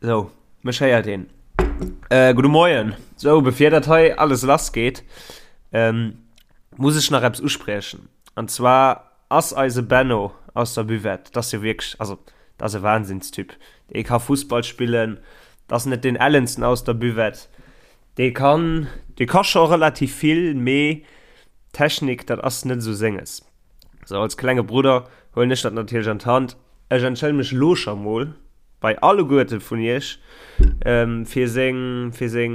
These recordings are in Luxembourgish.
Sou, mech héiert een. Äh, gudde Moien. Sou, bevir dat hei alles lass geet, ähm, muss ech nach eppes uspriechen. An zwar ass eise Benno aus der Buvette, dat ass jo wierklech, also dat ass e Wahnsinnstyp. Dee ka Fussball spillen, dat ass net deen ellensten aus der Buvette. Dee kann, dee ka scho relativ vill, mee Technik, dat ass net esou senges. Sou, als klenge Brudder huelen ech dat natierlech an d'Hand. Ech entschëllen mech lo scho mol bei alleguerte vun iech fir seng, fir seng,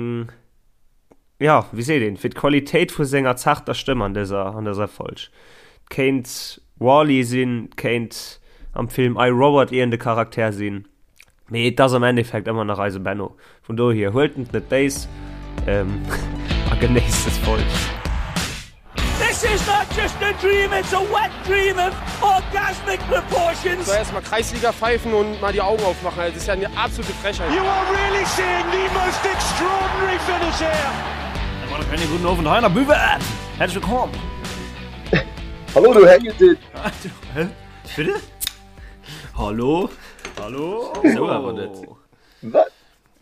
jo, wéi seet een, fir d'Qualitéit vu senger zarter Stëmm an dëser, an dëser Folg. Et kéint Wall-E sinn, et kéint am Film I, Robot iergend e Charakter sinn. Mee et ass am Endeffekt ëmmer nach eise Benno. Vun dohier, huelt et net béis a genéisst des Folg. This is not just a dream, it's a wet dream of orgasmic proportions. So erstmal Kreisliga pfeifen und mal die Augen aufmachen, also das ist ja eine absolute Frechheit. You are really seeing the most extraordinary finish here. Einen guten Abend hei an der Buvette. Herzlich willkommen. Hallo du Hängetit. Hä? Bitte? Hallo? Hallo? Sou awer net. Wat?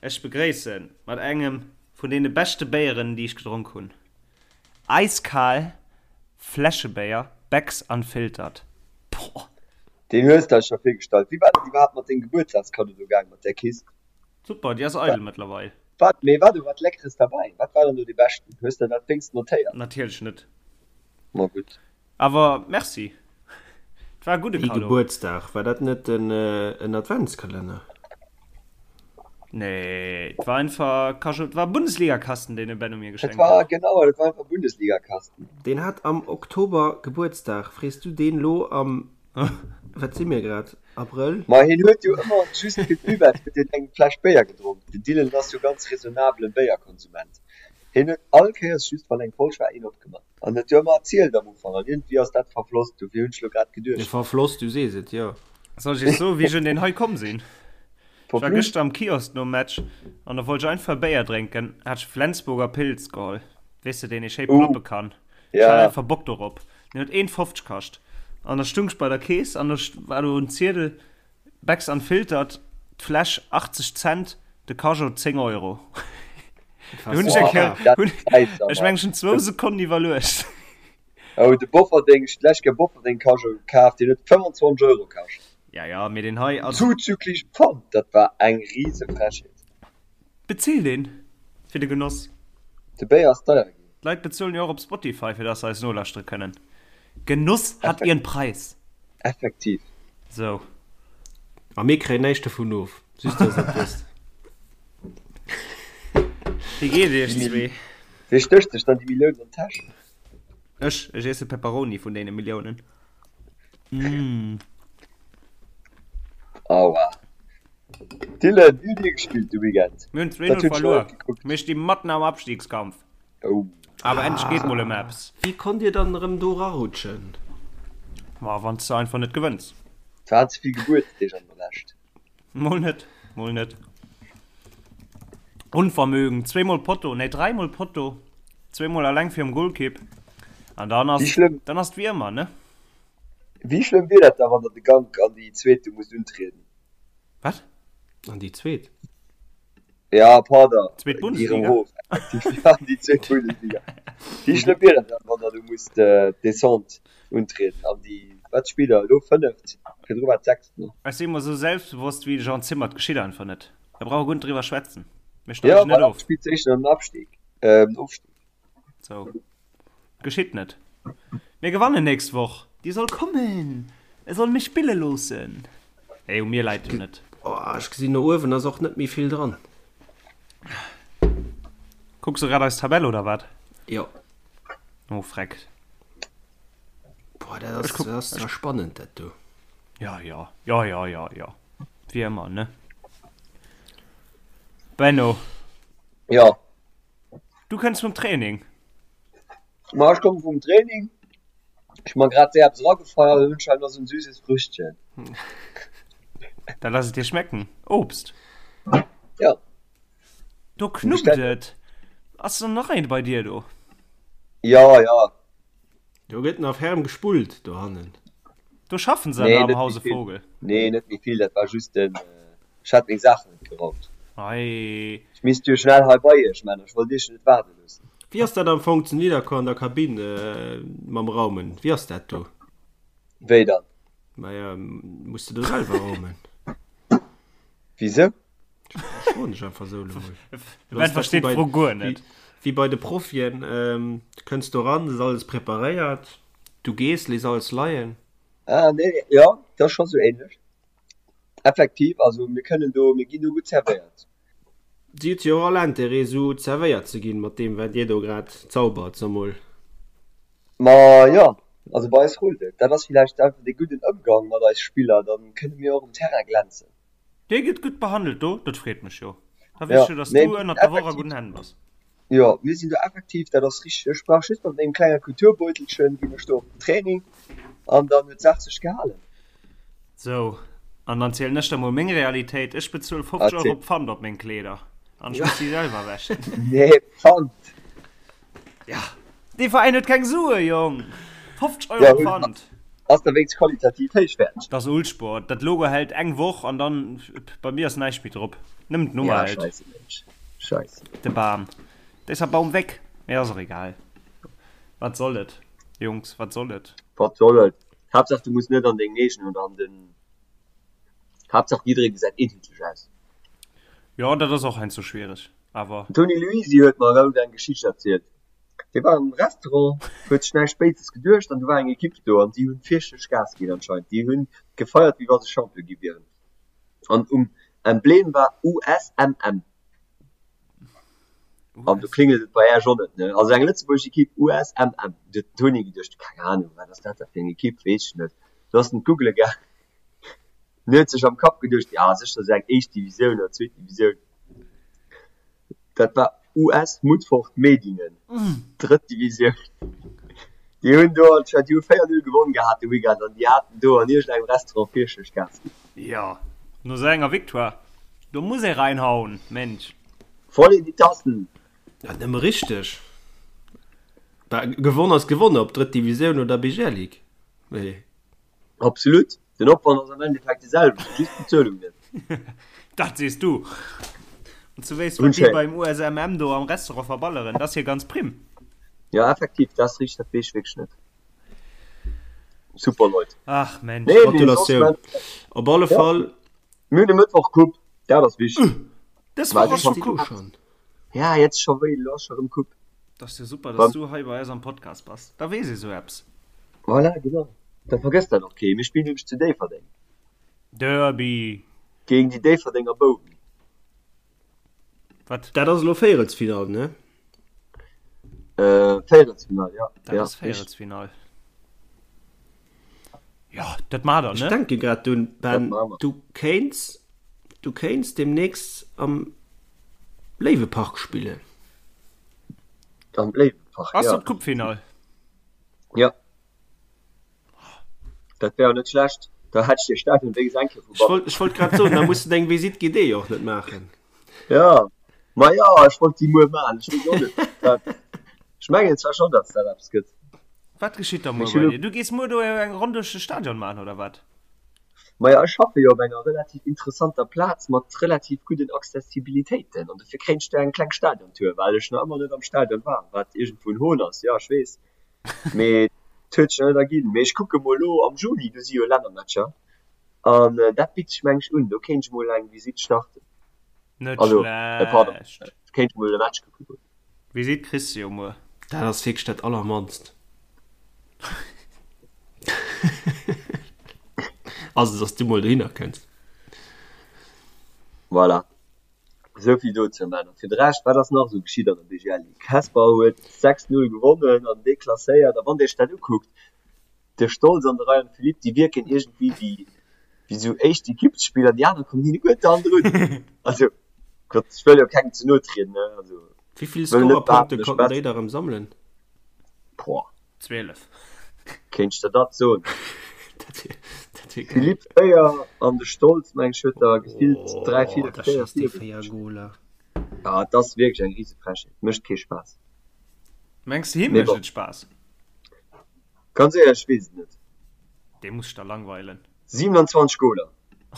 Ech begréissen mat engem vun deene beschte Béieren, déi ech gedronk hunn. Eiskal Fläschebéier, Beck's Unfiltered. Boah! Deen hues de eis scho virgestallt. Wéi war dat iwwerhaapt mat dengem Gebuertsdagskaddo do gaang, mat där Kist? Super, déi ass eidel mëttlerweil. Wat? Mee war do wat Leckeres derbäi? Wat war dann do dee beschten? Hues de dat wéinst notéiert? Natierlech net. Ma gutt. Awer merci. Et war e gudde Wéi Cadeau. Gebuertsdag? War dat net en Adventskalenner? Nee, et war einfach Cadeau, et war e Bundesligakasten, deen de Benno mir Et geschenkt war, huet. genau, et war einfach e Bundesligakasten. Deen hat am Oktober Gebuertsdag. Frees du deen lo am, wat si mir grad, Abrëll? Ma hien huet jo ëmmer just fir d'Buvette huet hien eng Fläsch Béier gedronk. Den Dylan ass jo ganz raisonnablen Béierkonsument. Hien huet all Kéiers just wann eng Folg war een opgemaach. An huet jo ëmmer erzielt am Ufank an iergendwéi ass dat verfloss, dofir hunn ech lo grad geduecht. Verfloss, du sees et, jo. Soll ech iech soen, wéi ech un deen hei komm sinn? Ech war gëschter am Kiosk nom Match an da wollt ech einfach e Béier drénken, hat ech Flensburger Pils geholl, weess de, deen ee schéi ploppe kann. Ech hat einfach Bock dorop. Deen huet 1,50 kascht. An da stung ech bei der Kees an da war do en Ziedel, Becks Unfiltered, d'Fläsch 80 Cent, de Cajot 10 Euro. Do hunn ech eng Kéier, hunn, ech meng ech hunn zwou Sekonnen iwwerluecht. Oh, de Bofferding, ech hunn d'lescht Kéier Bofferding Cajot kaf, deen huet 25 Euro kascht. Ja, ja, mee deen hei, also. Zuzüglich Pfand, dat war eng rise Frechheet. Bezilt een fir de Genoss? De Béier ass deier ginn. D'Leit bezuelen jo och op Spotify fir dass se eis nolauschtere kënnen. Genuss hat ihren Preis. Effektiv. Sou. A mir kréien näischt dovun of, just dass der et wësst. Wéi geet et iech zwee? Wee stécht sech dann déi Milliounen an d'Täsch? Ech, ech iesse Pepperoni vun deene Milliounen. Mmh. Aua. Dylan, wéi hutt Dir gespillt de Weekend? Mir hunn 2-0 verluer. Mir sti matten am Abstiegskampf. Oh. Awer endlech geet mol ëm eppes. Wéi konnt Dir dann erëm do rarutschen? Ma wann s de einfach net gewënns. Et waren ze vill Gebuertsdeeg an der Lescht. Mol net, mol net. Unvermögen, zweemol Potto, nee dräimol Potto, zweemol alleng virum Golkipp. An dann ass, Wéi schlëmm, dann ass et wéi ëmmer, ne? wéi schlëmm wier dat da, wann der de Gank an déi zweet do musst untrieden? Wat? An déi zweet? Ja, pardon. Zweet Déi Bundesliga? Hof, effektiv. Ja, déi zweet Bundesliga. Wéi schlëmm wier dat dann, wann der do musst d'Descente untrieden an déi, wat spillt der elo, fënneft? Virdru war et sechst, ne? Ech si mol esou selbstbewosst wéi de Jean Zimmer, et geschitt einfach net. Da brauch e guer net driwwer schwätzen. Mir Ja, steigen net voilà, of. spillt éischter ëm den Abstieg, äh, ëm den Ofstieg. Sou. Geschitt net. Mir gewannen nächst Woch. Déi soll kommen. E soll mech spille loossen. Hey, u mir läit et net. Oh, ech gesinn no uewen ass och net méi vill dran. Kucks du grad eis Tabell oder wat? Jo. Oh freck. Boah, dat ass, dat ass zwar spannend dat do. Ja, ja, ja, ja, ja, ja. Wéi ëmmer, ne? Benno. Ja. Du kënns vum Training? Ma ech komme vum Training. Ech hu mer grad séier eppes eragefeiert an hunn scheinbar esou en süßes Früchtchen. Da lass et dir schmecken. Obst. Ja. Do knuppt et. Ass dann nach eent bei dir do? Ja, ja. Do gëtt nach ferm gespullt dohannen. Do schaffen se Nee, am net méi Hause vill. Vogel. Nee, net méi vill, dat war just den, ech hat meng Saachen net geraumt. Ei. Ech misst jo schnell hei bei iech, Männer, ech wollt iech jo net waarde loossen. Wéi ass dat am Fong zu Nidderkuer an der Kabinn mam Raumen? Wéi ass dat do? Wéi dann? Maja, muss de do selwer raumen? Wisou? Ech froen dech einfach esou elo mol. De Ben versteet d'Fro guer net. Wéi bei de Profien, du kënns do ran, et ass alles preparéiert, du gees, léiss alles leien. Ah nee, jo, dat ass scho sou ähnlech. Effektiv, also mir kënnen do, mir ginn do gutt zerwéiert. Si huet jo och all Intérêt esou zerwéiert ze ginn, mat deem wat dir do grad zaubert, so mol. Ma jo, also bei eis rullt et. Dat ass villäicht einfach dee gudden Ëmgang mat eis Spiller, da kënne mir och um Terrain glänzen. Dir gitt gutt behandelt do, dat freet mech jo. Da weess ech jo, dass du ënnert der Woch a gudden Hänn bass. Jo, mir sinn do effektiv, dat ass richteg. Ech brauch just mat mengem klenge Kulturbeutelchen, ginn ech do op den Training an dann huet d'Saach sech gehalen. Sou, an dann zielen ech der mol meng Realitéit, Ech bezuel 50 Euro Pfand op meng Kleeder an ech muss si selwer wäschen. Nee, Pfand? Ja, dee Veräin huet keng Sue, Jong! 50 Euro Pfand! Ass da wéinst qualitativ héichwäerteg. Dat ass Uhlsport, dat Logo hält eng Woch an dann, bei mir ass näischt méi drop, nëmmen d'Nummer Ja, hält. scheisse Mensch, scheisse. De Bam, da ist der Baum weg, mee ass och egal. Wat soll et, Jungs, wat soll et? Wat soll et? Haaptsaach du muss net an deng eegen oder an den, Haaptsaach jidderee gesäit eenheetlech aus. Jo, dat ass och heiansdo schwiereg, awer. Den Toni Luisi huet mer haut eng Geschicht erzielt. Dee war am Restaurant, huet sech näischt Béises geduecht an du war eng Ekipp do an déi hunn fierchterlech Gas ginn anscheinend. Déi hunn gefeiert wéi wa se Champion gi wieren an um Emblem war USMM. An do klingelt et bei Äech och net, ne? Also eng lëtzebuergesch Ekipp USMM. Du huet den Toni geduecht, keng Ahnung, wat ass dat da fir eng Ekipp, weess ech net. Du ass en d'googele gaangen, en huet sech am Kapp geduecht, ja sécher esou eng éischt Divisioun oder zweet Divisioun. Dat war US Mutfort Medingen, drëtt Divisioun. Déi hunn do anscheinend, déi hu 4, 0 gewonn gehat de Weekend an déi haten do an iergendengem Restaurant fierchterlech Gas ginn. Jo, no sou enger Victoire, do muss ee reinhauen, Mensch. Voll in die Tassen! Ja, nëmme richteg. Bah, gewonn ass gewonn, ob drëtt Divisioun oder BGL Ligue. Mee. Absolut, den Opwand ass am Endeffekt de selwechten, just d'Bezuelung net. Dat sees du. An du wéisst, wat déi beim USMM do am Restaurant verballeren, dat ass jo ganz primm. Jo, effektiv, dat ass richteg, dat weess ech wierklech net. Super Leit. Ach Mensch. Nee, mee soss, Gratulatioun. Op alle Fall. Mir hunn e Mëttwoch Coupe, dat ass wichteg. Dës Woch ass scho Coupe. Ja, jetzt scho wéi, elo ass scho rëm Coupe. Dat ass jo super, dass du hei bei eis am Podcast bass. Da weess ee sou eppes. Voilà, genau. Da vergësst dat och kee. Mir spillen nämlech zu Déifferdeng. Derby! Géint déi Déifferdenger Bouwen. Wat? Dat ass elo Véierelsfinall, ne? Äh, Véierelsfinall, ja. Dat ass Véierelsfinall. Jo, dat maacht der, ne? Ech denke grad drun, Ben, du kéints, du kéints deemnächst am Léiwepark spillen. Am Léiwepark, ja. Ass dat d'Coupefinall? Ja. Dat wär jo net schlecht. Da hätt ech de Stadion wéinstens eng Kéier vu Ech wollt, ech wollt grad soen, da muss de deng Visite guidée och net maachen. Ja, ma ja, ech wollt déi muer maachen. Ech weess och net, wat. Ech mengen zwar schonn, datt dat eppes gëtt. Wat geschitt da muer bei dir? Du gees muer do eng Ronn duerch de Stadion maachen, oder wat? Maja, ech schaffe jo op enger relativ interessanter Plaz mat relativ gudden Accessibilitéiten an dofir kréien ech do eng kleng Stadiontour, well ech nach ëmmer net am Stadion war, wat iergendwou en Hohn ass, jo ech weess, mee et huet sech nach net erginn. Mee ech kucke mol elo am Juni, do si jo Lännermatcher an dat bitt sech meng ech un, do kéint ech mol eng Visitt starten, Net also pardon, schlecht. kéint ech mol e Match kucke goen. Visitt kriss de jo muer. Dat ass wierklech dat allermannst. Also dass du mol dohinner kënns. Voilà, esou vill dozou. Männer, fir de Rescht, wat ass nach esou geschitt an der BGL Ligue? Hesper huet 6, 0 gewonnen an deklasséiert. A wann Dir Iech dat ukuckt, de Stolz an de Ryan Philippe, déi wierken iergendwéi wéi wéi sou éischt Ekippsspiller, déi aner kommen hinne guer d'Hand drun. Also Gott, ech wëll jo kengem ze no trieden, ne, also Wéi vill wëll net Scorerpunkte behaapten, ech konnten wess. déi da rëm sammelen? Boah, 12. kéint ech der dat soen? Dat wier, dat wier geil. Philippe 4 an de Stolz, meng ech, huet der gefillt 3, Oh, 4, da 4, schéisst dee 4 4 Goler. Ja, et ass wierklech eng rise Frechheet, mécht kee Spaass. Mengs de him Mee mécht bon. et Spaass? Ganz éierlech, ech weess et net. Dee muss sech da langweilen. 27 Goler,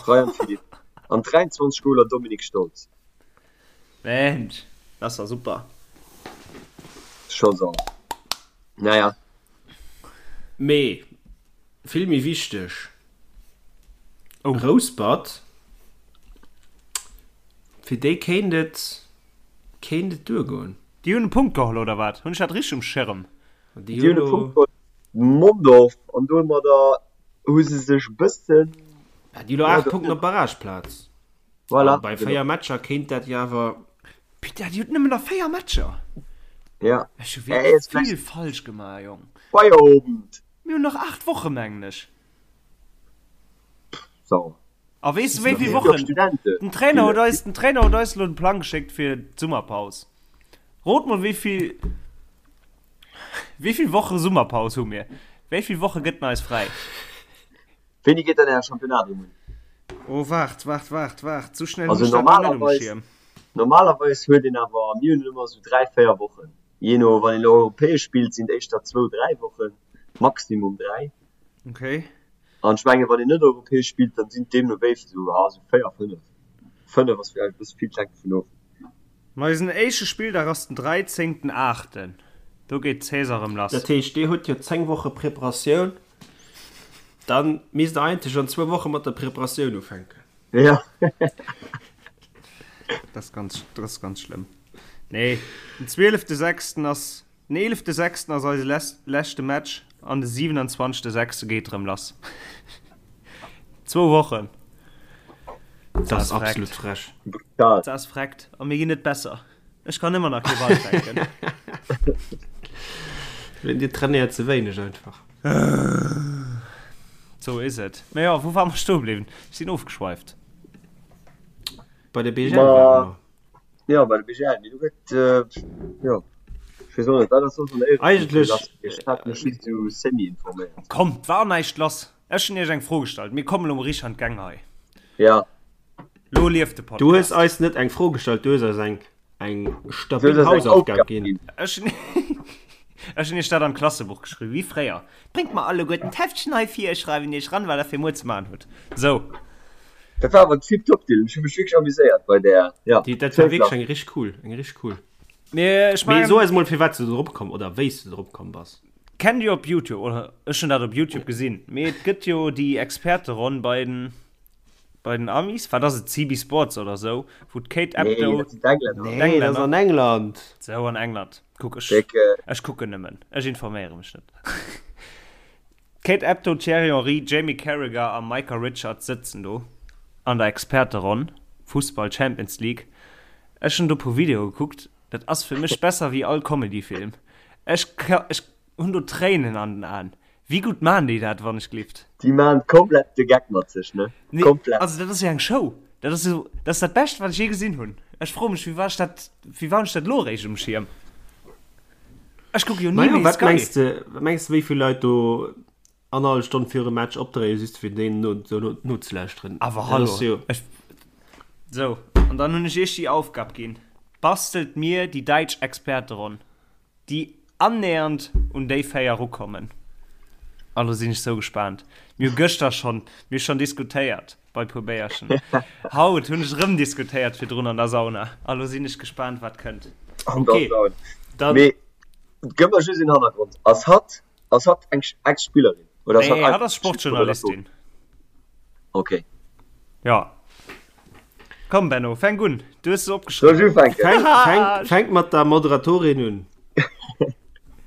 Ryan Philippe, an 23 Goler, Dominik Stolz. Mensch, dat ass da super. Scho sauer. Naja. Mee vill méi wichteg, Rouspert, fir déi kéint et kéint et duergoen. Déi hunn e Punkt geholl, oder wat? Hunn ech dat richteg um Schirm? Déi hunn e Punkt geholl, Mondorf, an domadder hu se sech e bëssen. Déi hu lo 8 Punkten op d'Barrageplaz. Voilà, An bei 4 Matcher kéint dat jo awer. Putain, déi huet nëmmen nach 4 Matcher! Ja. Ech hu wierklech vill falsch gemaach, Jong. Feierowend! Mir hunn nach 8 Woche, mengen ech. Sauer. A weess du wéi vill Wochen? Den Trainer huet eis, den Trainer huet eis elo den Plang geschéckt fir d'Summerpaus. Rot mol wéi vill, wéi vill Woche Summerpaus hu mir? Wéi vill Woche gëtt en eis fräi? Wéini geet dann Äre Championnat erëm un? Oh waart, waart, waart, waart, sou schnell hunn ech dat nach net um Schierm. Normalerweis huet een awer, mir hunn ëmmer sou 3, 4 Wochen, jee no, wann een europäesch spillt sinn et éischter zwou, 3 Wochen, maximum 3. Okay. An ech mengen, wann een net europäesch spillt, dann sinn et deemno wéi sou, ja, sou 4, 5. 5 ass vläicht e bësse vill, et hänkt dovun of. Ma eisen éischte Spilldag ass den 13 aachten, do geet d'Saison erëm lass. Dat heescht, dir hutt jo 10 Woche Preparatioun, dann misst der eigentlech an zwou Woche mat der Preparatioun ufänken. Jo. Dat ass ganz, dat ass ganz schlëmm. Nee, den 12 sechsten ass, den 11 sechsten ass eise leschte Match an de 27 sechste geet erëm lass. Zwou Wochen. Dat ass absolut frech. Brutal. Dat ass freckt. A mir ginn net besser. Ech kann ëmmer nach kee Ball fänken. Dir trainéiert ze wéineg einfach. Sou is et. Mä jo, wou ware mer stoe bliwwen? Ech sinn ofgeschweift. Bei der BGL ware mer. Jo, bei der BGL. Mee do gëtt, jo, ech weess och net, wat ass soss an der Éiereklass lass? Ech hat mech just esou semi-informéiert. Komm, 't war näischt lass. Ech hunn iech eng Fro gestallt. Mir kommen elo mol richteg an d'Gäng hei. Ja. Lo lieft de Podcast. Du hues eis net eng Fro gestallt, du hues eis eng, eng stabil Hausaufgab ginn. Ech hunn ech hunn iech dat an d'Klassebuch geschriwwen, wéi fréier. Bréngt mer alleguerten d'Heftchen hei vir, ech schreiwen iech ran, wat der fir muer ze maachen hutt. Sou. Dat war awer tiptop, Dylan. Ech hu mech wierklech amuséiert bei där. Ja, Déi, dat war wierklech eng richteg cool, eng richteg cool. Mee ech Mee mengen. so eis mol, firwat s du drop komm oder wéi s du drop komm bass. Kennt dir op Youtube, oder ech hunn dat op Youtube gesinn, mee et gëtt jo déi Experteronn bei den, bei den Amis, wat ass et, CB Sports oder sou, wou d'Kate Nee, Abdo, dat sinn d'Englänner. Nee, dat ass an England. Sou, an England. Kuck, ech, Déck, ech kucken nëmmen, ech informéiere mech net. D'Kate Abdo, Thierry Henry, Jamie Carragher a Micah Richards sëtzen do an der Experteronn, Fussball Champions League. Ech hunn do e puer Videoe gekuckt, Dat ass fir mech besser wéi all Comedy-Film. Ech ech hunn do Tréinen an den Aen. Wéi gutt maan déi dat, wann ech glift? Déi maan komplett de Geck mat sech, ne? Nee, Komplett. also dat ass jo eng Show. Dat ass jo, dat ass dat Bescht, wat ech jee gesinn hunn. Ech froe mech, wéi war ech dat, wéi war hunn ech dat elo eréischt um Schierm? Ech kucke jo ni Majo, méi wat Sky. mengs de, wat mengs de, wéi vill Leit do annerhallef Stonn virum Match opdréien, just fir deen no, no, nozelauschteren? Awer Dat hallo, ass jo. ech, sou, an dann hunn ech iech déi Aufgab ginn, Bastelt mir déi däitsch Experteronn, déi annähernd un déi 4 erukommen. A lo sinn ech sou gespaant. Mir hu gëschter schonn, mir hu schonn diskutéiert bei puer Béierchen. Haut hunn ech erëm diskutéiert virdrun an der Sauna. A lo sinn ech gespaant, wat kënnt. An der Okay, Sauna. dann. Mee gëff mer just een Hannergrond. Ass hatt Ass hatt eng Ex-Spillerin? Oder ass nee, hatt ass Sportjournalistin. Okay. Ja. Komm Benno, fänk un. Du hues se opgeschriwwen. Soll ech ufänken? Fänk, fänk, fänk mat der Moderatorin un.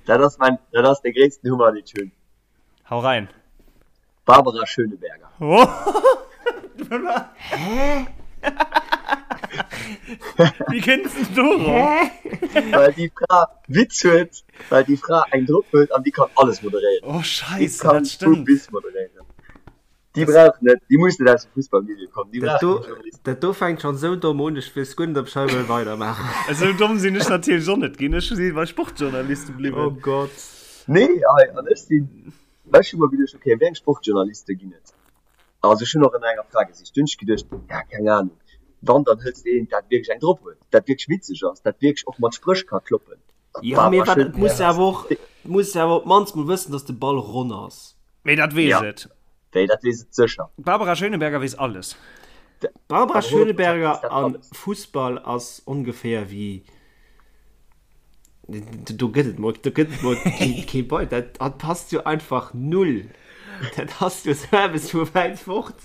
Dat ass mein, dat ass de gréissten Hummer, deen ech hunn. Hau rein. Barbara Schöneberger. Hä? Wéi kënns de dorop? Well déi Fra Witz huet, well déi Fra eng drop huet an déi kann alles moderéieren. Oh Déi Scheisse, kann dat vu stëmmt. bis moderéieren. Déi brauch net, déi muss net aus dem Fussballmilieu kommen, déi Dat brauch do, keng Journalisten. dat do fänkt schonn esou domm un, ech weess guer net, ob ech hei wëll weidermaachen. Esou domm sinn ech natierlech och net ginn. Ech si bei Sportjournaliste Oh bliwwen. Gott. Nee, hei, an ech sinn, ech hu mer geduecht, okay, wéi eng Sportjournaliste ginn et? Also ech hunn och ënner enger Fra gesicht. Dunn hunn ech geduecht, ja keng Ahnung, wann dann hëls de eent dat wierklech eng drop huet, dat wierklech witzeg ass, dat wierklech och mat Spréch ka kloppen. Jo, mee Barbara wat, et muss Schöneberger ass awer och, et muss awer op d'mannst mol wëssen, datt de Ball ronn ass. Mee dat weess Ja, et. déi, dat weess et sécher. D'Barbara Schöneberger weess alles. Barbara Schöneberger an Fussball ass ongeféier wéi do gëtt et mol do gëtt et mol kee Bei dat dat passt jo einfach null. Dat ass jo sou eppes vu wäit fort.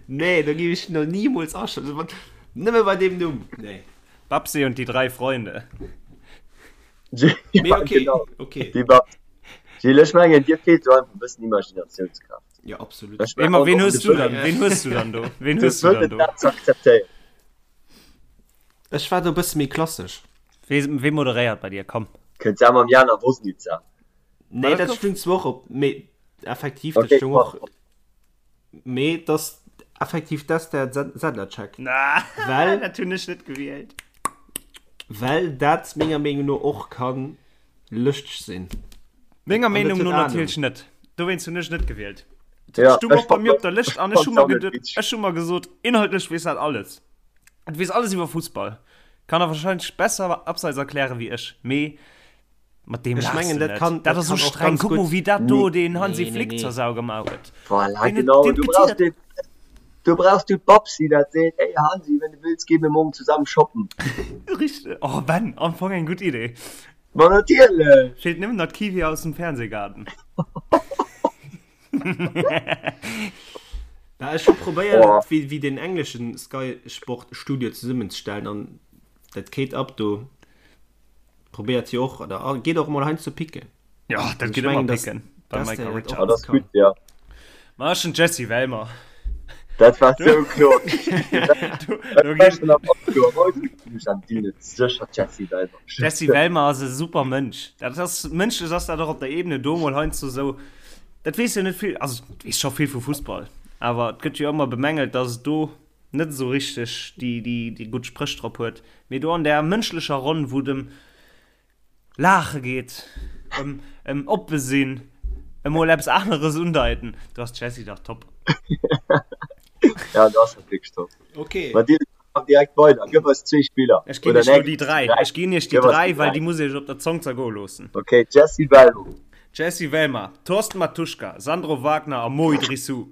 Nee, do géif ech no nimools aschalten. Nëmme bei deem Numm. Nee. Babsi und die drei Freunde. Mee okay, genau. okay. Déi Babsi. Gilles, ech mengen, dir feelt do einfach e bëssen Imaginatiounskraaft. Ja, absolut. Ech Ween, mengen, ween och hues de du dann? Wëllen, Ween hues du dann do? Ween de hues du dann Wëllen do? dat ze akzeptéieren. Ech war do e bësse méi klassesch. Wee, wee moderéiert bei dir? Komm. Kënnt se mam Jana Wosnica. Nee, dat dat gouf- stung zwar och op, mee effektiv, dat Okay, stung och, pardon. mee dass effektiv d'Esther Sedlacek. Na, Well- dat hunn ech net gewielt. Well dat menger Meenung no och kann lëschteg sinn. Menger An dat Meenung huet no Ahnung. natierlech net. Dowéinst hunn ech net gewielt. Ja, Dat stung ech och bei fand mir op dat- der Lëscht an ech ech hu mer fand dat geduet, witzeg. ech hu mer gesot, inhaltlech weess dat alles. Et weess alles iwwer Fussball. Kann der wahrscheinlech besser abseits erklären wéi ech. Mee mat deem Ech laachs mengen, du dat net. kann- Dat dat ass sou kann och streng. ganz Kuck mol gutt- wéi dat do Nee. den Hansi Nee, nee, Flick nee. zur Sau gemaach huet. Voilà, Deen huet- genau. deen Du huet brauchst geziddert. den, du brauchst du d'Babsi, dat seet, ey Hansi, wenn du willst, gehen wir morgen zusammen shoppen. Richteg. Oh Ben, am Fong eng gutt Idee. Ma natierlech! Feelt nëmmen nach d'Kiwi aus dem Fernsehgarten. Bah, ech hu probéiert, Oh. wéi, wéi den engleschen Sky Sport Studio zesummenzestellen an dat Kate Abdo probéiert jo och, oder ah, geet och mol heiansdo picken. Ja, dat Ich geet ëmmer mengen, dass- picken beim dass Michael der dat Richards. och Ah, dat ass kann. gutt, ja. Ma ech hunn d'Jessie Wellmer. Dat war sou kloer. Do, do Dat war ginn schon am Oktober. Heute hunn ech an Deal sécher d'Jessie Wellmer. Jessie Wellmer ass e super Mënsch. Dat ass mënschlech ass dat och op der Ebene do mol heiansdo sou. Dat weess jo net vill, also et weess scho vill vu Fussball, awer et gëtt jo ëmmer bemängelt, datt et do net esou richteg déi, déi, déi gutt Spréch drop huet. Mee do an där mënschlecher Ronn, wou et ëm Laache geet, ëm, ëm oppe sinn, ëm mol eppes aneres undeiten, do ass d'Jessie dach top. Ja, do ass dat wierklech top. Okay. Ma Dylan, mach direkt weider. Gëff eis zwee Spiller. Ech ginn Oder iech lo nee, déi 3. dräi. Ech ginn iech déi Gëff eis 3, déi well dräi. déi muss iech op der Zong zergoe loossen. Okay, Jessie Wellmer. Jessy Wellmer, Thorsten Mattuschka, Sandro Wagner a Mo Idrissou.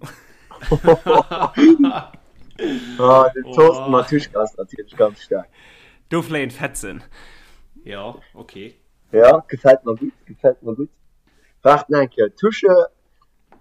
Ah, den Thorsten Mattuschka ass natierlech ganz staark. Do fléien d'Fetzen. Ja, okay. Ja, gefält mer gutt, gefält mer gutt. Waart nach eng Kéier, Tusche,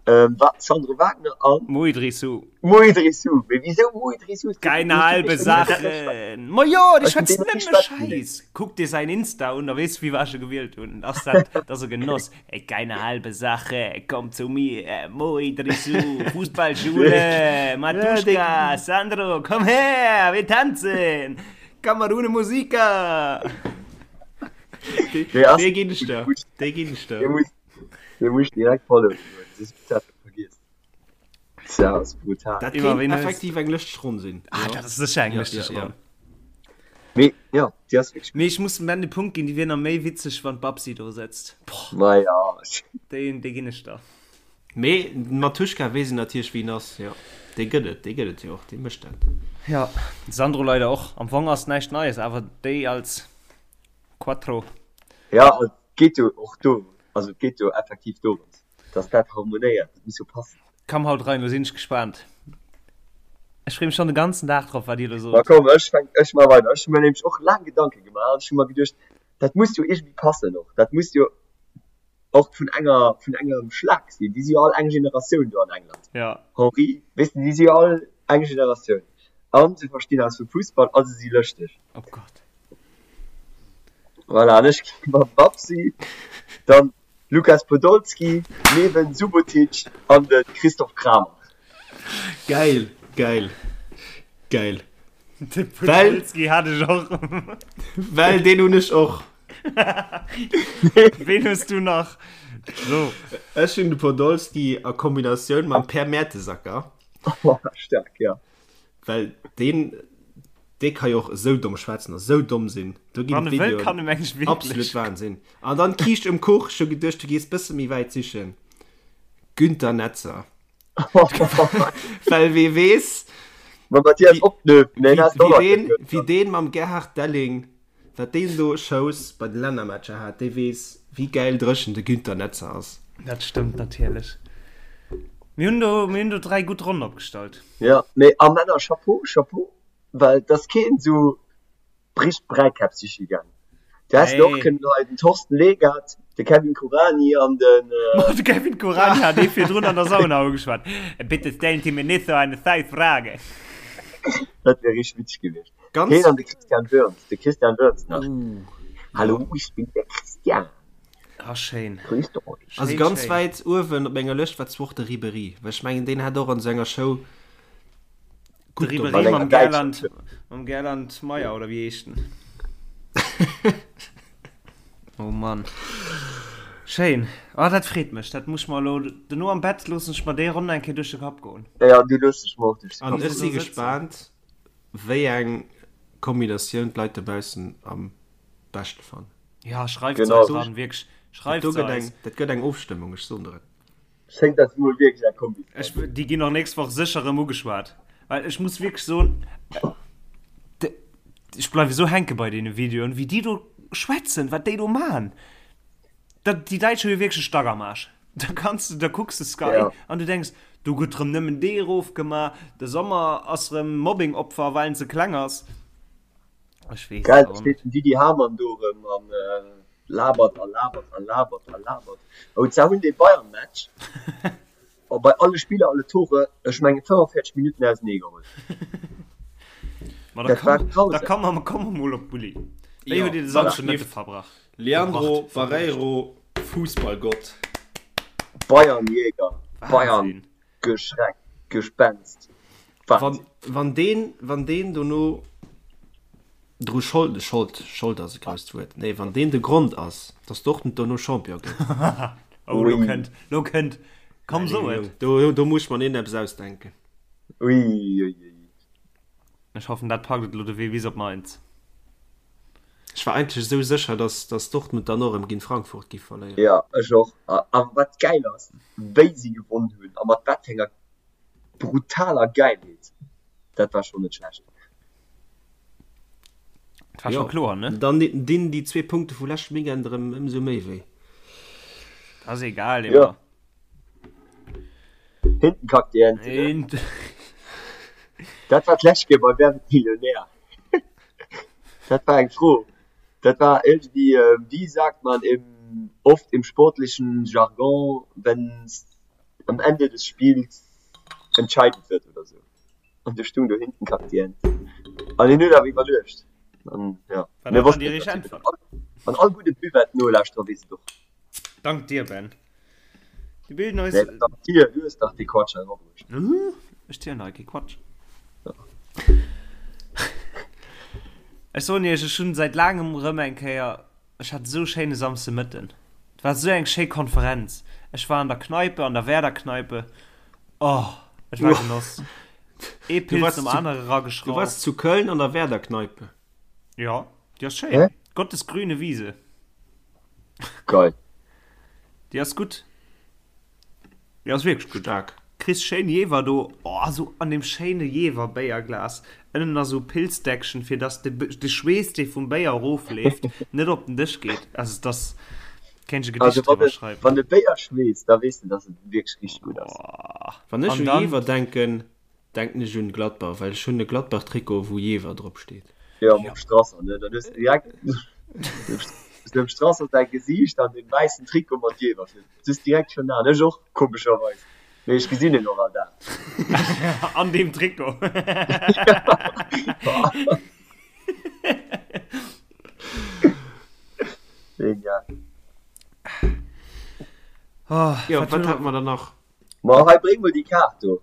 ähm, Wa Sandro Wagner an Mo Idrissou. Mo Idrissou. Mee wisou Mo Idrissou? Keine halbe Sache. Ma jo, dee Ech hun schwätzt deen nëmme nach ni schwätzen Schäiss. Kuck dir säin Insta un, da weess du, wéi ech e gewielt hunn. Ass dat, dat ass e Genoss. Ey, keine halbe Sache, komm zu mir, Mo Idrissou, Fußballschule, Matuschka, Sandro, komm her, wir tanzen, Kamerune Musika. Dee ass Dee ginn ech der, dee ginn ech der. Dee muss, dee muss direkt followen, soss hues du dat vergiess. Dat ass brutal. Dat Iwwer kéint ween hues- effektiv eng lëschteg Ronn sinn. Ah, dat ass sécher eng Ja, lëschteg ja, ja. Ronn. Mee, ja, déi ass wierklech Mee ech muss dem Ben de Punkt ginn, déi wier nach méi witzeg, wann d'Babsi do sëtzt. Boah, Ma ja. déi, déi ginn ech der. Mee den Mattuschka weess een natierlech wien ass, jo. Dee gëtt et, dee gëtt et jo och, dee mécht dat. Ja, Sandro leider och. Am Fong ass näischt Neies, awer déi als Quattro. Ja, et geet jo och do, also et geet jo effektiv dorëms, dass dat harmonéiert, dat muss jo passen. Komm haut rein, lo sinn ech gespaant. Ech free mech schon de ganzen Dag drop wat dir lo Ma sot. komm, ech fänk, ech maache weider. Ech hu mir nämlech och laang Gedanke gemaach an ech hu mer geduecht, dat muss jo iergendwéi passen och, dat muss jo och vun enger, vun engem Schlag sinn. Déi si jo all eng Generatioun do an England. Ja. Henri, weess de, déi si jo all eng Generatioun an se verstinn eppes vu Fussball a se si lëschteg. Oh Gott. Voilà, an ech gi mam Babsi, dann Lukas Podolski, Neven Subotic an de Christoph Kramer. Geil, geil, geil. De Podolski hat ech och. Well deen hunn ech och. Ween hues du nach? So. Ech hunn de Podolski a Kombinatioun mam Per Mertesacker. Staark, ja. Well deen, dee ka jo och esou domm schwätzen a sou domm sinn. Do ginn Wann e wëll, d'Videoen kann e meng ech wierklech. absolut Wahnsinn. An dann d'Kiischt um Kuch, ech hu geduecht, du gees bësse méi wäit sichen, Günther Netzer. Well wee weess, Mam Mathias wéi, Opnöf, nee, wéi, ass och wéi nach deen, net wéi deen mam Gerhard Delling, wat deen do Shows bei de Lännermatcher hat, dee weess, wéi gäil dréchen de Günther Netzer ass. Dat stëmmt natierlech. Mir hunn do, mir hunn do 3 gutt Ronnen opgestallt. Jo, mee a Männer, Chapeau, Chapeau, well et ass keen esou richteg Bräikäpp siche gaangen. Du häss och kënnen hei den Thorsten Legat, de Kevin Kuranyi an den. Ma de Kevin Kuranyi hat ee virdrun an der Sauna ugeschwat, Bitte stellen Sie mir nicht so eine scheiß Frage. Dat wär richteg witzeg gewiescht. Heen an de Christian Wörns, de Christian Wörns nach. Hallo, ich bin der Christian. Ah, schéin. Grüßt euch. Also ganz wäit uewen op menger Lëscht war zwar och de Ribéry, well ech mengen deen hat och an senger Show De gutt Ribéry dobäi. mam Gerland, mam Gerland Meyer oder wéi heescht en? Oh Mann. Schéin. Ah, dat freet mech. Dat muss ech mer elo dono am Bett loossen ech mer déi Ronn eng Kéier duerch de Kapp goen. Ja, déi loosse ech mer och duerch de An Kapp ech goen. si gespaant wéi eng Kombinatioun d'Leit dobaussen am beschte fannen. Ja, schreift se Genau. eis an, wierklech. Schreift Dat do se gëtt eis. eng, dat gëtt eng Ofstëmmung, ech soen der et. Schéngt dat mol wierklech eng Kombi ze Ech, sinn. déi ginn och nächst Woch sécher erëm ugeschwat. Well ech muss wierklech soen, de, ech bleiwe sou hänke bei deene Videoen, wéi déi do schwätzen, wat déi do man. Dat, déi Däitsch hu jo wierklech e Stack am Aarsch. Da kanns du, da kucks de Sky Ja. an du denks, do gëtt rëm nëmmen dee erofgema, de Sommer ass rëm Mobbing-Opfer, well en ze kleng ass. Ech weess Geil, et da och steet net. den Didi Hamann do erëm an labert a labert a labert a labert. Oh, zwar hunn dee Bayern-Match bei alle Spiller, alle Tore, ech mengen 45 Minutten ausenee geholl. Ma da Dat war komm, da grausam. komm mer, komm mer mol op d'Bulli. Wéi Jo, huet Dir de wat Samschden Mëtte schlieft verbracht? Leandro Verbracht, verbruecht? Barreiro, Fussballgott. Bayern-Jäger, Bayern Wahnsinn. Geschreck, Gespenst, Wann, Wahnsinn. wann deen, wann deen dono dru Schold, Schold, Schold ass e grousst Wuert, nee, wann deen de Grond ass, dass Dortmund dono Champion gëtt. Oh, lo Ui. kënnt, lo kënnt, komm Nee, so et. Jong, do, do muss ech mer neen eppes ausdenken. Ui, ui, ui. Ech hoffen, dat packt et elo de Wee bis op Mainz. Ech war eigentlech esou sécher, dass, dass Dortmund dann och erëm géint Frankfurt giff verléieren. Jo, ech och. A wat gäil ass, wéi si gewonn hunn a mat wat fir enger brutaler Gäilheet, dat war schonn net schlecht. Dat war scho kloer, ne? Dann dinn déi zwee Punkte vu leschtem Weekend erëm ëmsou méi wéi. Dat ass egal, Jo. Emma. Hinten kackt die Ente, ne? Dat war d'lescht Kéier bei Wer wird Millionär? Dat war eng Fro. Dat war irgendwie, wie sagt man im, oft im sportlichen Jargon, wenn's am Ende des Spiels entscheidend wird oder sou. An du stung do hinten kackt die Ente. An hien huet awer iwwerluecht. An ja, War mir dat dann wossten déi et richteg natierlech. Äntwert? An all gudde Buvette-Nolauschterer weess et och. Dank dir, Ben. Dir bilden eis. Nee, dank dir, du hues dach dee Quatsch hei erabruecht. Ech zielen hei kee Quatsch. Ech soen iech, ech hunn säit laangem erëm eng Kéier, ech hat esou e schéine Samsdemëtten. Et war esou eng schéi Konferenz. Ech war an der Kneipe, an der Werder-Kneipe. Oh, et war Genoss. Ee Pils nom anere erageschrauft. Du wars zu Köln an der Werder-Kneipe? Jo, déi ass schéin. Gottes grüne Wiese. Geil. Déi ass gutt. Déi ass wierklech gutt. Staark. Kriss schéin Jeewer do, oh sou an deem schéine Jeewer-Béierglas, ënnen nach sou Pilzdeckchen, fir dass de de Schweess dee vum Béier erofleeft net op den Dësch geet. Also et ass, kéint ech e Gedicht Also wann driwwer de schreiwen. wann de Béier schweesst, da weess de dass et wierklech richteg gutt ass. Oh. Wann ech An u dann. Jeewer denken, Denken ech un Gladbach, well ech hunn e Gladbach Trikot wou Jever drop steet. Jo, mam Strasser, ne? Dann hues de direkt dem Strasser säi Gesiicht an deem wäissen Trikot mat Jever vir. Du hues direkt schon an. Ech och, komescherweis. Mee ech gesinn en och all Dag. An deem Trikot. Genial. Jo, wat hate mer dann nach? Ma hei, bréng mol déi Kaart do,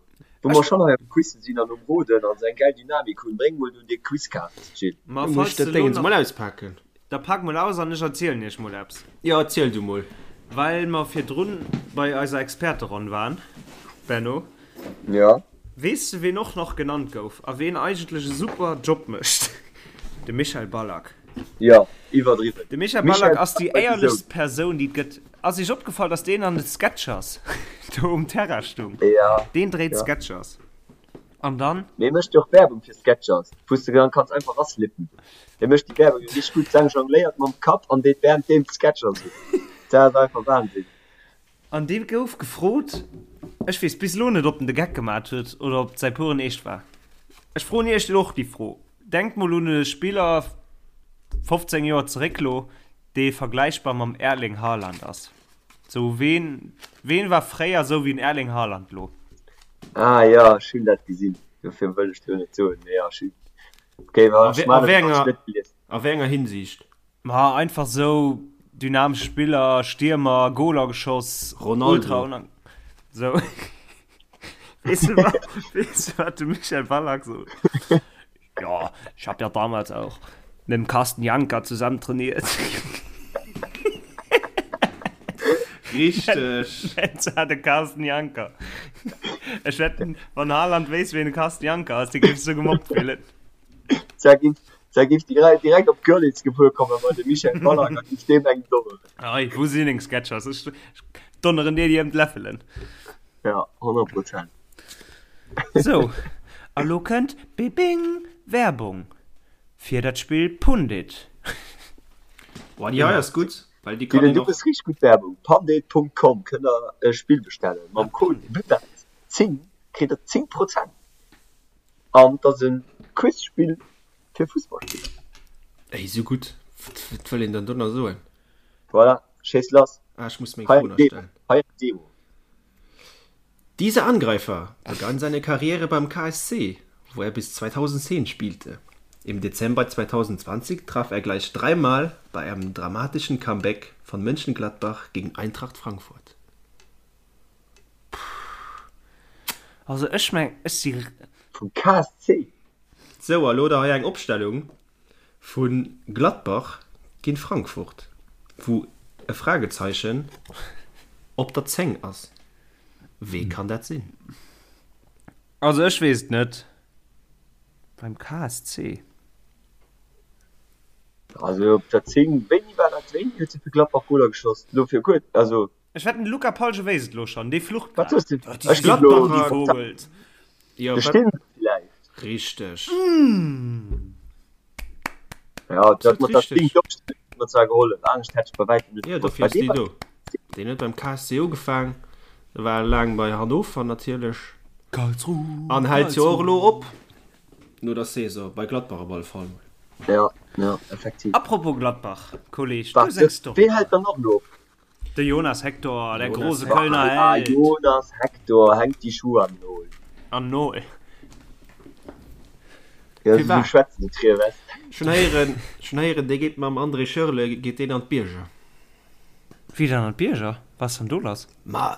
wou mer schonn hei am Quizzen sinn an um Roden an sou eng gäil Dynamik hunn. Bréng mol do déi Quizkaart, Jill. Ma Muss falls ech dat de lo Déngens nach. mol auspaken? Da pak mol aus an ech erzielen iech mol eppes. Jo, erziel du mol. Well mer virdrun bei eiser Experteronn waren, Benno. Jo. Weess de ween och nach genannt gouf a ween eigentlech e super Job mécht? De Michael Ballack. Jo, iwwerdriwwen. De Michael Ballack ass déi éierlechst Persoun déi et gëtt. Ass iech opgefall dass deen an de Sketchers do um Terrain stung? Ja. Deen dréit Sketchers. An dann? Mee mécht jo och Werbung fir Sketchers, wou s de dann kanns einfach raslippen. Dee mécht déi Werbung jo richteg gutt. D'Sang jongléiert mam Kapp an deet währenddeem d'Sketchers un. Dat ass einfach Wahnsinn. An dee gouf gefrot. Ech weess bis elo net, ob en de Geck gemat huet oder ob et säi puren Eescht war. Ech froen iech och déi Fro. Denkt mol un e Spiller 15 Joer zeréck lo, dee vergläichbar mam Erling Haaland ass. Sou ween, ween war fréier sou wéi den Erling Haaland lo? Ah jo, ech hunn dat gesinn, dofir wëll ech do net soen, mee jo, ech hunn, okay, A wéi, a wéi enger, a wéi enger Hinsicht? Ma einfach sou dynamesch Spiller, Stiermer, Goler geschoss, Ronaldo. ultra unang sou. Weess du wat, weess du wat de Michel Ballack sot? Ja, ich hab ja damals auch mit dem Carsten Janker zusammen trainiert. Richteg. Nennt zwar de Carsten Janker. Ech wetten, wann Haaland wéisst, ween de Carsten Janker ass, dee géif sech sou gemobbt fillen. Zwar géif, zwar géif direkt, direkt op Görlitz gefuer kommen bei de Michel Ballack a géif deem eng donneren. Ei, wou sinn deng Sketchers? Ech, ech donneren dir déi ëm d'Läffelen. Ja, 100 Prozent. Sou, a lo kënnt bibing Werbung fir dat Spill Pundit. Boah, déi hei ass gutt, well déi kann Dylan, een du och. méchs richteg gutt Werbung. Pandit.com kënnt der e Spill bestellen. Mam Code BUBET10 kritt der 10 Prozent. An et ass e Quizspill fir Fussballspiller. Ey, sou gutt. Wat wëll een dann do nach soen? Voilà, schéiss lass. Ah, ech muss meng Hei Fro eng nach Demo. stellen. Hei eng Demo. Dieser Angreifer begann seine Karriere beim KSC, wo er bis 2010 spielte. Im Dezember 2020 traf er gleich dreimal bei einem dramatischen Comeback von Mönchengladbach gegen Eintracht Frankfurt. Also ech meng, ech si. Vum KSC? Sou, a lo da hei eng Opstellung vu Gladbach géint Frankfurt, wou e Fragezeichen op der 10 ass. Wee kann dat sinn? Also ech weess et net. Beim KSC? Also op der 10, wéini war dat? Wéini huet se fir Gladbach Goler geschoss? Lo fir kuerz, also. Ech wetten de Luca Palge wéisst et lo schon, dee flucht Wat grad. soss de? Oh, Ech déi ginn elo Gladbacher Vogels. Jo, De wat? Stindl villäicht. Richteg. Ja, dat Absolut mat der richteg. 10 d'Opstellung huet mer zwar gehollef, anescht hätt ech bei wäitem net Jo, gewosst. dofir Bei ass deem déi war do. Deen huet beim KSC ugefaang, war laang bei Hannover natierlech Karlsruhe, an hält jo och Karlsruhe. elo op no der Saison, bei Gladbach op alle Fall mol. Ja, ja, effektiv. Apropos Gladbach, Kolleg, du Wat, hues eng Story. ween hält dann och elo op? De Jonas Hector, der Jonas große Hector. Kölner Ah, Held. Jonas Hector hänkt die Schuhe an Nol. An Nol. Ja, Firwat? so schwätzen die Trier West. Schon héieren, schon héieren, dee geet mam André Schürrle geet deen an d'Bierger. Wéi dann an d'Bierger? Was ass dann do lass? Ma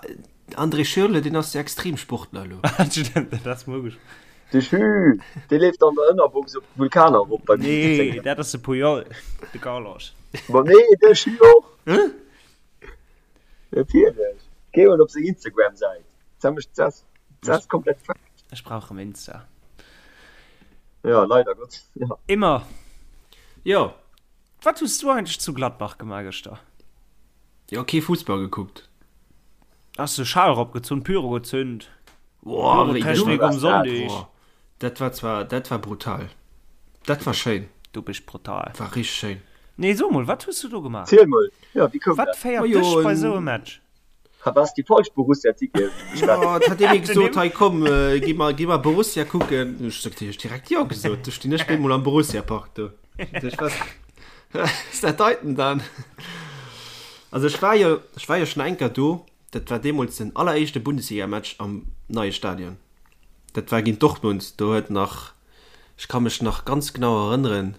André Schürrle, deen ass jo Extremsportler elo. Stimmt, dat ass mugesch. De Schü, dee leeft an der Ënnerbox op d'Vulkaner erop bei minus Nee, 10 Grad. dat ass de Puyol, de Carlos. Ma nee, de Schü och. Natierlech. Géi mol op seng Instagram-Säit. Dat mécht, dat ass komplett fucked. Ech brauch rëm Insta. Ja, leider Gottes, ja. Immer. Jo. Wat hues du eigentlech zu Gladbach gemaach gëschter? Jo, kee Fussball gekuckt. Has de Schal erop gezunn, Pyro gezünd? Boah, wéi Pyrotechnik um Sonndeg. Boah, dat war zwar, dat war brutal. Dat war schéin. Du bist brutal. War richteg schéin. Nee, so mol, wat hues du do gemaach? Ziel mol, jo, wéi koum Wat dat? féiert Majo, dech bei en. sou e Match? Ha, was déi falsch Borussia-Ticketen bestellt? Jo, et hat ee mir gesot, hei komm, gi mer, gi mer Borussia kucken. Ech sot, hu ech direkt jo gesot. Du stinn ech bemol am Borussia-Park do. Ech was, was dat deiten dann? Also ech war jo, ech war jo schon eng Kéier do. Dat war deemools den alleréischte Bundesliga-Match am neie Stadion. Dat war géint Dortmund. Do huet nach, ech ka mech nach ganz genau erënneren,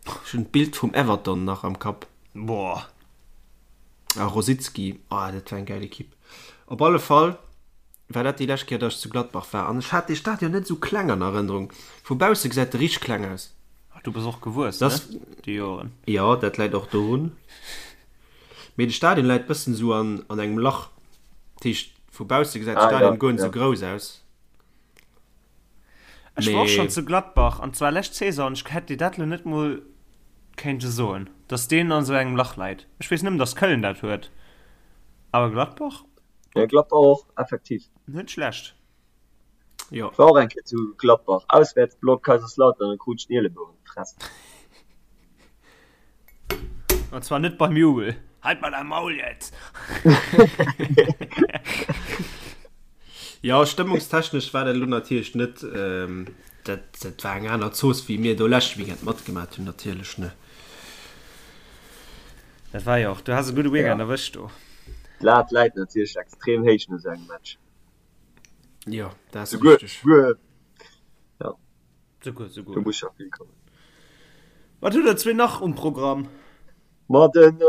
ech hunn d'Bild vum Everton nach am Kapp. Boah. A Rosicky, oh dat war eng gäil Ekipp. Op alle Fall war dat déi lescht Kéier, datt ech zu Gladbach war. An ech hat dee Stadion net esou kleng an Erënnerung. Vu bausse gesäit e richteg kleng aus. Ach, du bass och gewuess, ne, Das, déi Joren. jo, dat läit och dorun. Mee de Stadion läit bëssen esou an, an engem Lach. Dat heescht, vu bausse gesäit de Ah, ja, Stadion guer net ja. esou grouss aus. Ech war och Mee. schonn zu Gladbach, an zwar lescht Saison, an ech hätt dir dat lo net mol kéinte soen, dass deen an esou engem Lach läit. Ech weess nëmmen, dass Köln dat huet, awer Gladbach? Ja, Gladbach och, effektiv. Net schlecht. Jo. Ech war och eng Kéier zu Gladbach, Auswäertsblock Kaiserslautern, an krut ech den Ielebou an d'Fress. An zwar net beim Jubel. Halt mal dein Maul jetzt! Jo, stëmmungstechnesch war dat elo natierlech net, dat, dat war eng aner Zooss, wéi mir do leschte Weekend matgemat hunn, natierlech, ne? Dat war jo och, du has e gudde Weekend erwëscht do. D'Lat läit natierlech extrem héich no sou engem Match. Jo, dat ass richteg. Souguer, ja. Souguer, souguer. Do muss scho vill kommen. Wat hutt der zwee nach um Programm? Ma den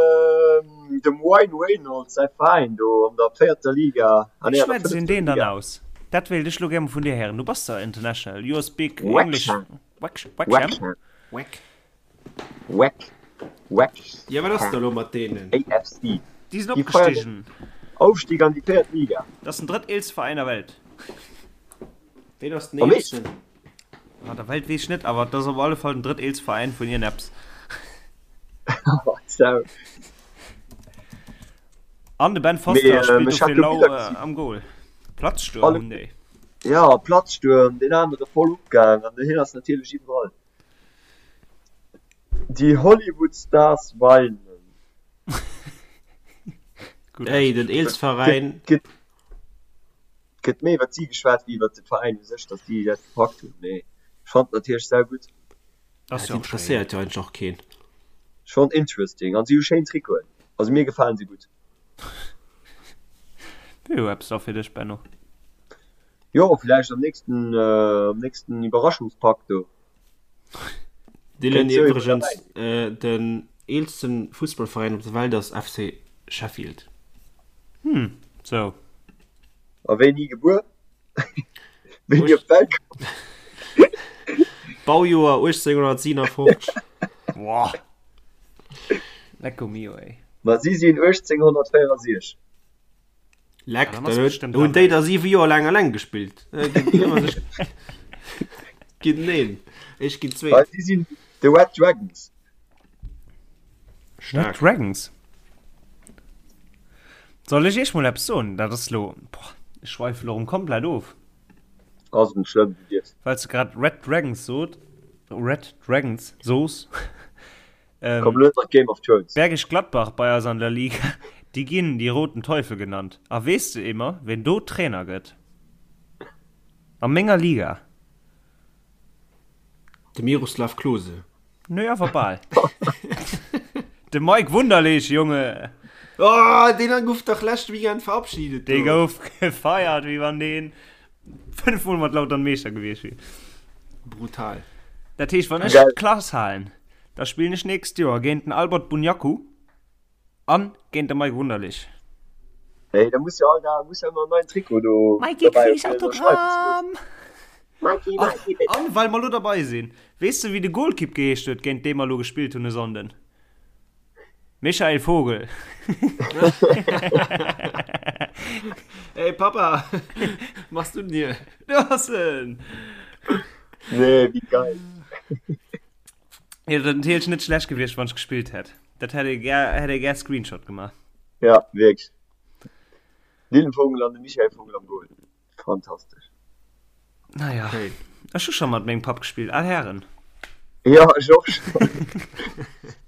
dem Wayne Reynolds säi Veräin do an der véierter Liga, ah Wéi nee, an der schwätzt een fënnefter deen dann Liga. aus? Dat wéilt ech lo gär mol vun dir héieren. Du bass der international, you speak English. Wrexham. Wrex, Wrexham? Wrexham. Weck. Weck. Jo, wat ass da lo mat deenen? Wrexham AFC. Déi sinn Déi feiern den opgestigen. Aufstieg an déi véiert Liga. Dat ass den drëtteelste Veräin der Welt. Ween ass den Am Eescht? eelsten? Ah, der Welt weess ech net, awer et ass op alle Fall den drëtteelste Veräin vun ierneps. Sau. An de Ben Mee Foster ähm, spillt ech hat dofir do lau Biller äh, gesinn. am Goal. Platzsturm Alle, hunn déi. ja, Platzsturm, deen anere voll opgaang an hien ass natierlech iwwerall. Die Hollywood Stars weinen. Gutt Ey, den ausgeschwat. eelste Gëtt, Veräin. gëtt, gëtt méi iwwer si geschwat wéi iwwer de Veräin u sech, datt déi dat gepackt hunn. Mee ech fand natierlech saugutt. Ass Dat jo och schéin. interesséiert jo eigentlech och keen. Schon interesting. An si hu schéin Trikoten. Also mir gefalen si gutt. Wier jo eppes da fir dech, Benno. Jo, villäicht am nächsten, am nächsten Iwwerraschungspak do. Dylan Kéint sou iwwer iwwregens, derbäi sinn. den eelsten Fussballveräin op der Welt ass FC Sheffield. Hm, sou. A wéini gebuer? Wéini op d'Welt komm? Baujoer 1857. Boah. Lecko mio, ey. Ma si sinn 1864. Leck, Ja, dann dann ass huet, bestimmt hunn déi dabei. da 7 Joer laang alleng gespillt. Äh, ginn ëmmer sech ginn een, ech ginn Well zweet. si sinn The Red Dragons. Red Staark. Dragons. Soll ech iech mol eppes soen? Dat ass lo, boah, ech schweife lo rem komplett of. Ass net schlëmm, du dierfs. Well s de grad Red Dragons sot, Red Dragons sos. Ähm, Komm lo net mat Game of Thrones. Bergisch Gladbach bei eis an der Liga, déi ginn die roten Teufel genannt. A weess de Emer, ween do Trainer gëtt? A menger Liga? De Miroslav Klose. Nö, awer bal. De Mike Wunderlich, Junge! Oh, deen gouf dach leschte Weekend verabschiedet Dee do. gouf gefeiert, wéi wann deen 5 Mol mat Lautern Meeschter gewiescht wier. Brutal. Dat heescht, wann ech Geil. d'Klass halen, da spillen ech nächst Joer géint den Albert Bunjaku an géint de Mike Wunderlich. Hey, da muss jo all Dag, muss jo ëmmer en neien Trikot do Mikey, dobäi krieg ich fir ënnerschreiwen ze loossen. Autogramm? Mikey, An, Mikey, bitte. an well mer lo derbei sinn, weess de wéi de Golkipp geheescht huet, géint dee mer lo gespillt hunn e Sonnden? Michael Vogel. Hey Papa, machst du denn hier? Du ass en! Nee, wéi geil. Jo, dat natierlech net schlecht gewiescht, wann ech gespillt hätt. Dat hätt ee gär, hätt ee gär Screenshot gemaach. Ja, wierklech. Dylan Vogel an de Michael Vogel am Goal. Fantastesch. Naja, Hey. ech hu scho mat mengem Papp gespillt, al Hären. Ja, ech och schon.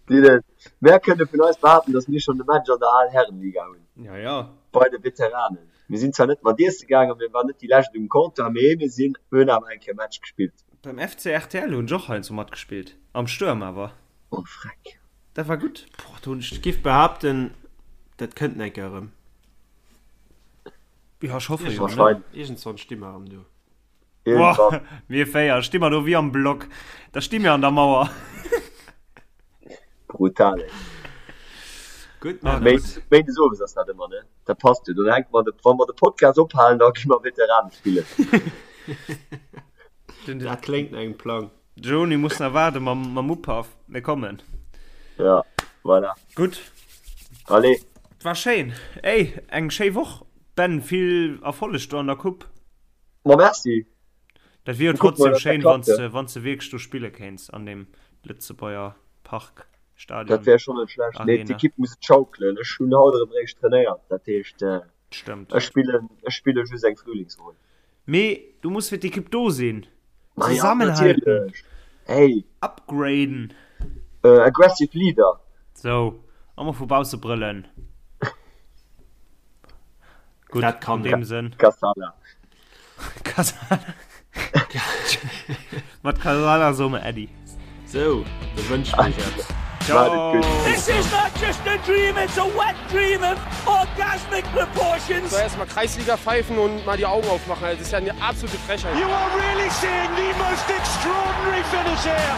Dylan, mär kënne vun eis behaapten, dass mir schon de Match an der Al-Herren-Liga hunn. Ja, ja. Bei de Veteranen. Mir sinn zwar net mat iesse gaangen, mir waren net déi lescht um Comptoir, mee mir sinn, hunn awer eng Kéier Match gespillt. Beim FC rtl hunn ech och heiansdo matgespillt, am Stuerm awer. Oh freck. Dat war gutt. Boah, do hunn ech, giff behaapten, dat kënnt eng Kéier erëm. Ja, ech hoffe jo, ne? Wahrscheinlech. Iergendswann sti mer erëm do. Boah, mir 4 sti mer do wéi am Block. Da sti mir an der Mauer. Brutal, ey. Gutt, Ah, Männer. gutt. Méindes owes ass dat ëmmer, ne? Dat passt jo. Dann hänke mer de, wa mer de Podcast ophalen, da gi mer Veteranen spillen. Den, Dat kléngt no engem Plang. Joni muss nach waarde mam, mam Upaff. Mir kommen. Ja, voilà. Gutt. Allez. War schéin. Ey, eng schéi Woch, Ben. Vill Erfolleg do an der Coupe. Ma merci. Dat wier jo Kucke mol, trotzdem dass dat schéin, klappt, wann s ja. de, wann s de wierklech do spille kéints an deem Lëtzebuerger Park, Dat Stadion, wär schonn net schlecht. Mee Arena. d'Ekipp muss et schaukelen. Ech hunn haut erëm réischt trainéiert. Dat heescht, Stëmmt. ech spillen, ech spille just eng Frühlingsronn. Mee du muss fir d'Ekipp do sinn. Ma ja, Zesammenhalten. natierlech. Hey. Upgraden. Aggressive Leader. Sou, a mol vu bausse brëllen. Gutt, Dat kann an deem Sënn. Kassala. Kasala. Mat Kasala soe mer Äddi. Sou, da wënschen ech iech eppes. Ciao. This is not just a dream, it's a wet dream of orgasmic proportions. So erstmal Kreisliga pfeifen und mal die Augen aufmachen. Also, das ist ja eine absolute Frechheit. You are really seeing the most extraordinary finish here.